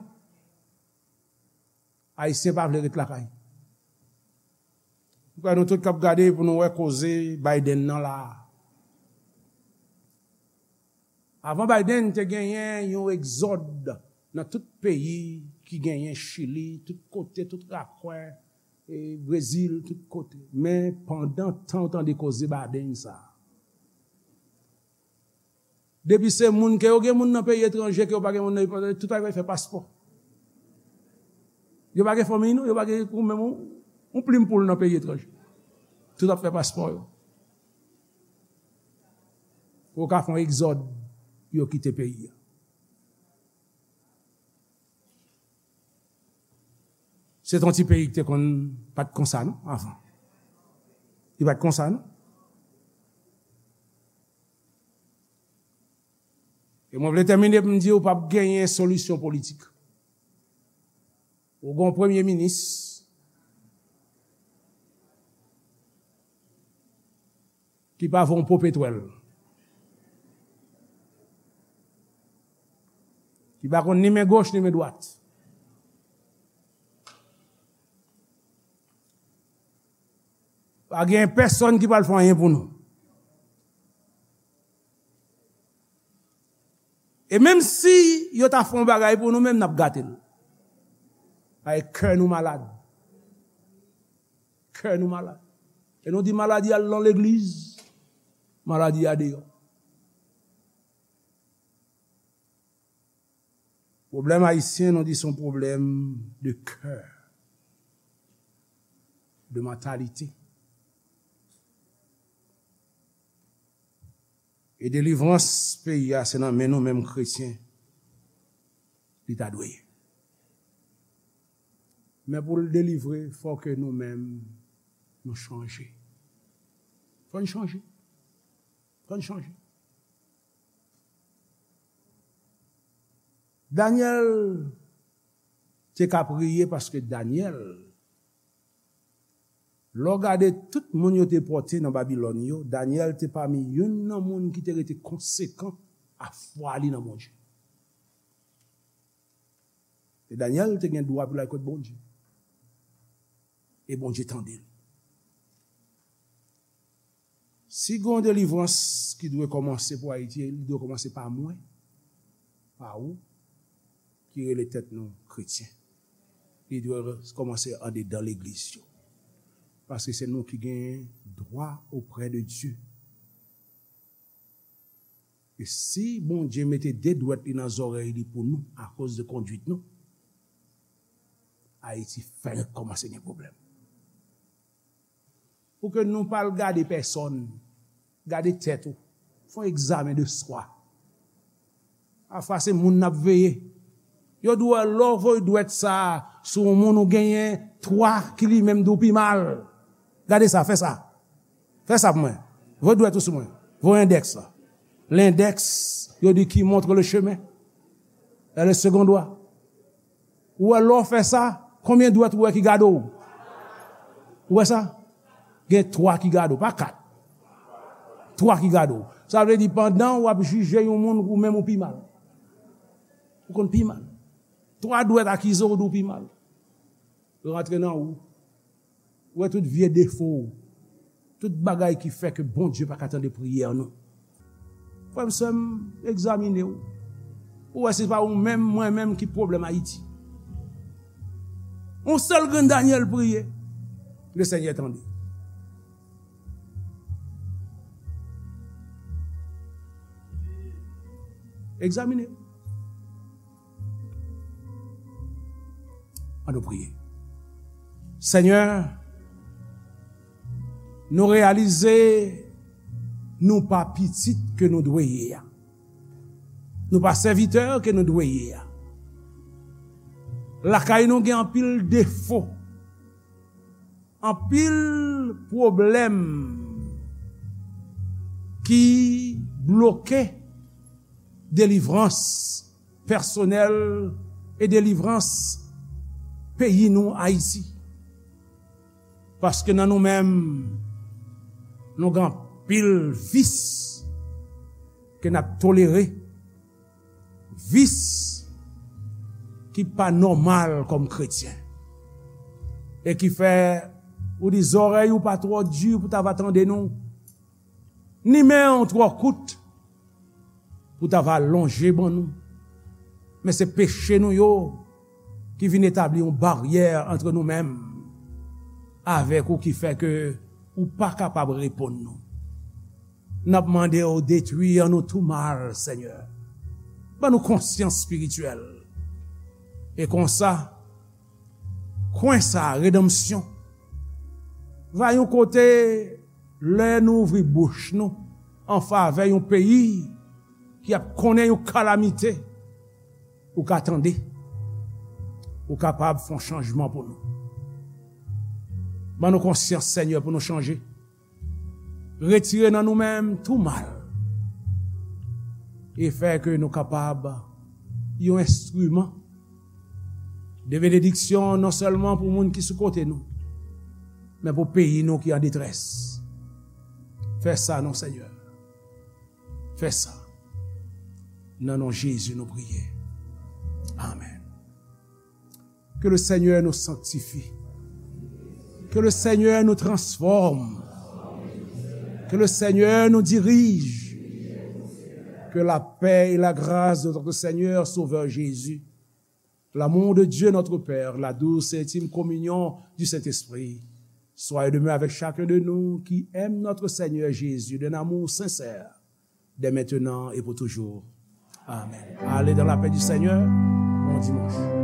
Ayisyen pa vle ret lakay. M kwè nou tout k ap gade pou nou wè koze Biden nan la a. Avan Biden, te genyen yon egzòd nan tout peyi ki genyen Chili, tout kote, tout rakwen, e Brezil, tout kote. Men pandan tan w tande koze Biden sa a, depi se moun ke yo gen moun nan peyi etranje, ke yo pa gen moun nan, tout bagay fè paspò. Yo pa gen fanmiy non, yo pa gen ou menm yon, yon plim poul nan peyi etranje. Tout ap fè paspò yo. Pou yo ka fè yon egzòd pou yo kite peyi a. Se t yon ti peyi ki te konn pa t konsa non, avan. Li pa t konsa non. E mwen vle tèmine pou m di w p ap genyen solisyon politik. Ou gen yon premye minis ki pa vo yon po petwèl. Ki pa konn ni men goch ni men dwat. Pa gen pèsonn ki pral fè anyen pou nou. E menm si yo ta fè yon bagay pou nou, menm n ap gate l. Paske kè nou malad. Kè nou malad. E nou di maladi a nan legliz, maladi a deyò. Pwoblèm ayisyen, nou di se yon pwoblèm de kè, de mantalite. E delivrans peyi a, se nan men nou menm kretyen li ta dwe ye. Men pou l delivre, fò ke nou menm nou chanje. Fò n chanje. Fò n chanje. Danyèl te ka priye paske Danyèl, lè w gade tout moun yo te pòte nan Babilòn yo, Danyèl te pami youn nan moun ki te rete konsekan a fwa li nan Bondye. E Danyèl te gen dwa pou l al kot Bondye. E Bondye tande l. Si gen yon delivrans ki dwe kòmanse pou Ayiti, li dwe kòmanse pa mwen, pa ou, ki rele tèt nou kretyen. Li dwe kòmanse andedan legliz yo. Paske se nou ki gen dwa oprè de Dye. E si Bondye mete de dwèt li nan zòrèy li pou nou akoz de kondwit nou, Ayiti fèk kòmanse gen pwoblèm. Pou ke nou pa al gade pèsòn, gade tèt ou. Fè yon egzamen de swa. Pafwa se moun n ap veye. Yo di w lè w voye dwèt sa a sou yon moun ou genyen twa ki li menm di w pi mal. Gade sa, fè sa. Fè sa pou mwen. Voye dwèt ou sou mwen. Voye endèks la. Lendèks, yo di qui montre le chemin. E le second doigt. Ou wè lè w fè sa, konbyen dwèt ou wè ki gade w? Ou wè sa? Gen twa ki gade w, pa kat. Twa ki gade w. Sa vle di pandan w ap jije yon moun, ou menm ou pi mal. Ou konn pi mal. Twa dwèt akize w, di w pi mal. Yo rantre nan ou. Ou wè tout vye defo w. Tout bagay ki fè ke Bondye pa ka tande priyè nou. Frè m, sè m, egzamine w. Ou wè se pa ou menm, mwen menm ki pwoblèm Ayiti. Yon sèl grenn Danyèl priye, Lesenyè tande. Egzamine. Ann nou priye. Senyè, nou reyalize nou pa pitit ke nou dwe ye a. Nou pa sèvitè ke nou dwe ye a. Lakay nou gen anpil defo, anpil pwoblèm ki bloke delivrans pèsonèl e delivrans peyi nou, Ayiti. Paske nan nou menm, nou gen anpil vis ke n ap tolere, vis ki pa nòmal kòm kretyen, e ki fè ou di zòrèy ou pa twò di pou ta va tande nou, ni men w twò kout pou ta va lonje ban nou. Men se peche nou yo ki vin etabli yon baryè antre nou menm avèk ou ki fè ke ou pa kapab reponn nou. N ap mande w detwi an nou tou mal, Senyè. Ban nou konsyans espirityèl. E konsa, kwen sa a, redanmsyon, va yon kote lè nou ouvri bouch nou an favè yon peyi ki ap konnen yon kalamite, ou ka tande, ou kapab fè yon chanjman pou nou. Ban nou konsyans, Senyè, pou nou chanje. Retire nan nou menm tou mal e fè ke nou kapab yon enstriman de benediksyon non sèlman pou moun ki sou kote nou, men pou peyi nou ki an detrès. Fè sa non, Senyè. Fè sa. Nan non Jezi nou priye. Amèn. Que le Seigneur nous sanctifie. Que le Seigneur nous transforme. Que le Seigneur nous dirige. Que la paix et la grâce de notre Seigneur Sauveur Jésus, l'amour de Dieu notre Père, la douce et intime communion du Saint-Esprit, soient et demeurent avec chacun de nous qui aime notre Seigneur Jésus d'un amour sincère, dès maintenant et pour toujours. Amen. Allez dans la paix du Seigneur. Bon dimanche.